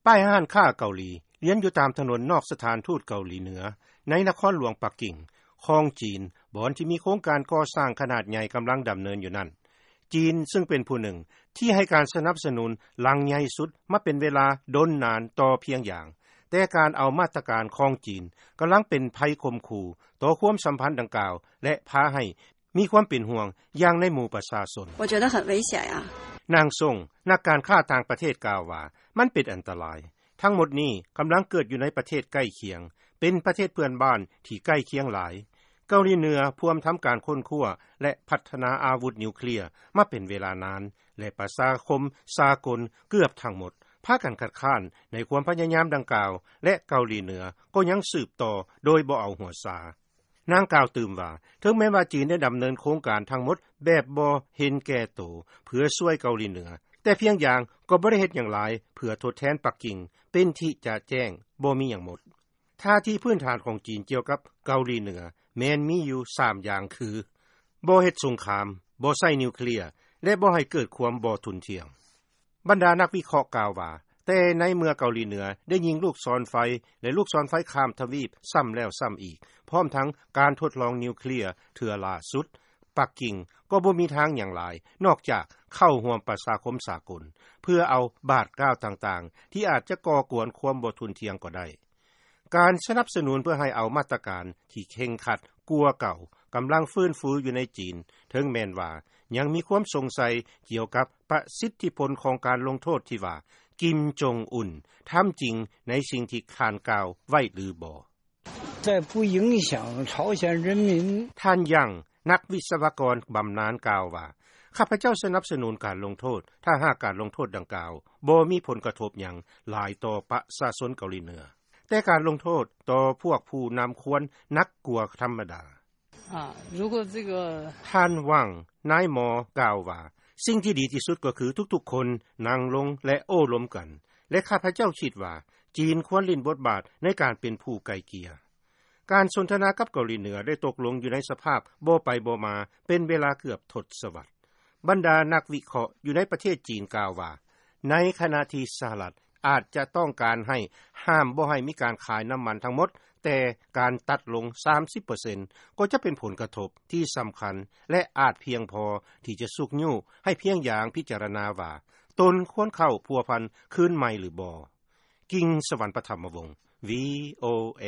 ປ້າຍຮ້ານຄ້າເກົາຫຼີ ລຽນຢູ່ຕາມຖະໜົນນອກສະຖານທູດເກົາຫຼີເໜືອ ໃນນະຄອນຫຼວງປັກກິ່ງ ຂອງຈີນ ບ່ອນທີ່ມີໂຄງການກໍ່ສ້າງຂະໜາດໃຫຍ່ ກຳລັງດຳເນີນຢູ່ນັ້ນ. ຈີນ ຊຶ່ງເປັນຜູ້ໜຶ່ງ ທີ່ໃຫ້ການສະໜັບສະໜູນຫຼັງໃຫຍ່ສຸດ ມາເປັນເວລາດົນນານຕໍ່ພຽງຢ່າງ, ແຕ່ການເອົາມາດຕະການຂອງຈີນ ກຳລັງເປັນໄພຂົ່ມຂູ່ຕໍ່ຄວາມສຳພັນດັ່ງກ່າວ ແລະ ພາໃຫ້ມີຄວາມເປັນຫ່ວງຢ່າງໃນໝູ່ປະຊາຊົນ. 我觉得很危险呀。 ນາງຊົງ ນັກການຄ້າຕ່າງປະເທດກ່າວວ່າ ມັນເປັນອັນຕະລາຍ. ທັງໝົດນີ້ກຳລັງເກີດຢູ່ໃນປະເທດໃກ້ຄຽງ, ເປັນປະເທດເພື່ອນບ້ານທີ່ໃກ້ຄຽງຫຼາຍ. ເກົາຫຼີເໜືອພວມທຳການຄົ້ນຄວ້າ ແລະ ພັດທະນາອາວຸດນິວເຄລຍມາເປັນເວລານານ ແລະ ປະຊາຄົມສາກົນເກືອບທັງໝົດ ພາກັນຄັດຄ້ານໃນຄວາມພະຍາຍາມດັ່ງກ່າວ ແລະ ເກົາຫຼີເໜືອກໍຍັງສືບຕໍ່ໂດຍບໍ່ເອົາຫົວຊາ. ນາງກ່າວຕື່ມວ່າ ເຖິງແມ່ນວ່າຈີນໄດ້ດຳເນີນໂຄງການທັງໝົດແບບບໍ່ເຫັນແກ່ໂຕ ເພື່ອຊ່ວຍເກົາຫຼີເໜືອ, ແຕ່ພຽງຢ່າງກໍບໍ່ໄດ້ເຮັດຫຍັງຫຼາຍເພື່ອທົດແທນປັກກິ່ງ ເປັນທີ່ຈະແຈ້ງບໍ່ມີຫຍັງໝົດ. ທ່າທີພື້ນຖານຂອງຈີນກ່ຽວກັບເກົາຫຼີເໜືອ ແມ່ນມີຢູ່ສາມຢ່າງຄື: ບໍ່ເຮັດສົງຄາມ, ບໍ່ໃຊ້ນິວເຄລຍ ແລະ ບໍ່ໃຫ້ເກີດຄວາມບໍ່ທຸ່ນທ່ຽງ. ບັນດານັກວິເຄາະກ່າວວ່າ ແຕ່ໃນເມື່ອເກົາຫຼີເໜືອໄດ້ຍິງລູກສອນໄຟ ແລະ ລູກສອນໄຟຂ້າມທະວີບຊ້ຳແລ້ວຊ້ຳອີກ ພ້ອມທັງການທົດລອງນິວເຄລຍເທື່ອລ່າສຸດ, ປັກກິ່ງກໍບໍ່ມີທາງຫຍັງຫຼາຍ ນອກຈາກເຂົ້າຮ່ວມປະຊາຄົມສາກົນ ເພື່ອເອົາບາດກ້າວຕ່າງໆ ທີ່ອາດຈະກໍ່ກວນຄວາມບໍ່ທຸ່ນທ່ຽງກໍໄດ້. ການສະໜັບສະໜູນເພື່ອໃຫ້ເອົາມາດຕະການທີ່ເຄັ່ງຄັດກວ່າເກົ່າ ກຳລັງຟື້ນຟູຢູ່ໃນຈີນ, ເຖິງແມ່ນວ່າຍັງມີຄວາມສົງໄສກ່ຽວກັບປະສິດທິຜົນຂອງການລົງໂທດທີ່ວ່າ ກິມ ຈົງ ອຸນ ທຳຈິງໃນສິ່ງທີ່ທ່ານກ່າວໄວ້ຫຼືບໍ່. 在不影响朝鲜人民。 ທ່ານ ຢາງ ນັກວິສະວະກອນບຳນານກ່າວວ່າ ຂ້າພະເຈົ້າສະໜັບສະໜູນການລົງໂທດ ຖ້າຫາກການລົງໂທດດັ່ງກ່າວບໍ່ມີຜົນກະທົບຫຍັງຫຼາຍຕໍ່ປະຊາຊົນເກົາຫຼີເໜືອ, ແຕ່ການລົງໂທດຕໍ່ພວກຜູ້ນຳຄວນໜັກກວ່າທຳມະດາ. 啊，如果这个 ທ່ານ ຫວັງ ນາຍໝໍກ່າວວ່າ ສິ່ງທີ່ດີທີ່ສຸດກໍຄືທຸກໆຄົນນັ່ງລົງ ແລະ ໂອ້ລົມກັນ ແລະ ຂ້າພະເຈົ້າຄິດວ່າ ຈີນຄວນຫຼິ້ນບົດບາດໃນການເປັນຜູ້ໄກ່ເກ່ຍ. ການສົນທະນາກັບເກົາຫຼີເໜືອໄດ້ຕົກລົງຢູ່ໃນສະພາບບໍ່ໄປບໍ່ມາເປັນເວລາເກືອບທົດສະວັດ. ບັນດານັກວິເຄາະຢູ່ໃນປະເທດຈີນກ່າວວ່າ ໃນຂະນະທີ່ສະຫະລັດອາດຈະຕ້ອງການໃຫ້ຫ້າມບໍ່ໃຫ້ມີການຂາຍນ້ຳມັນທັງໝົດ, ແຕ່ການຕັດລົງສາມສິບເປີເຊັນກໍຈະເປັນຜົນກະທົບທີ່ສຳຄັນ ແລະ ອາດພຽງພໍທີ່ຈະຊຸກຍູ້ໃຫ້ພຽງຢ່າງພິຈາລະນາວ່າ ຕົນຄວນເຂົ້າພົວພັນຄືນໃໝ່ຫຼືບໍ່. ກິງ ສະຫວັນປະຖຳມະວົງ ວີໂອເອ.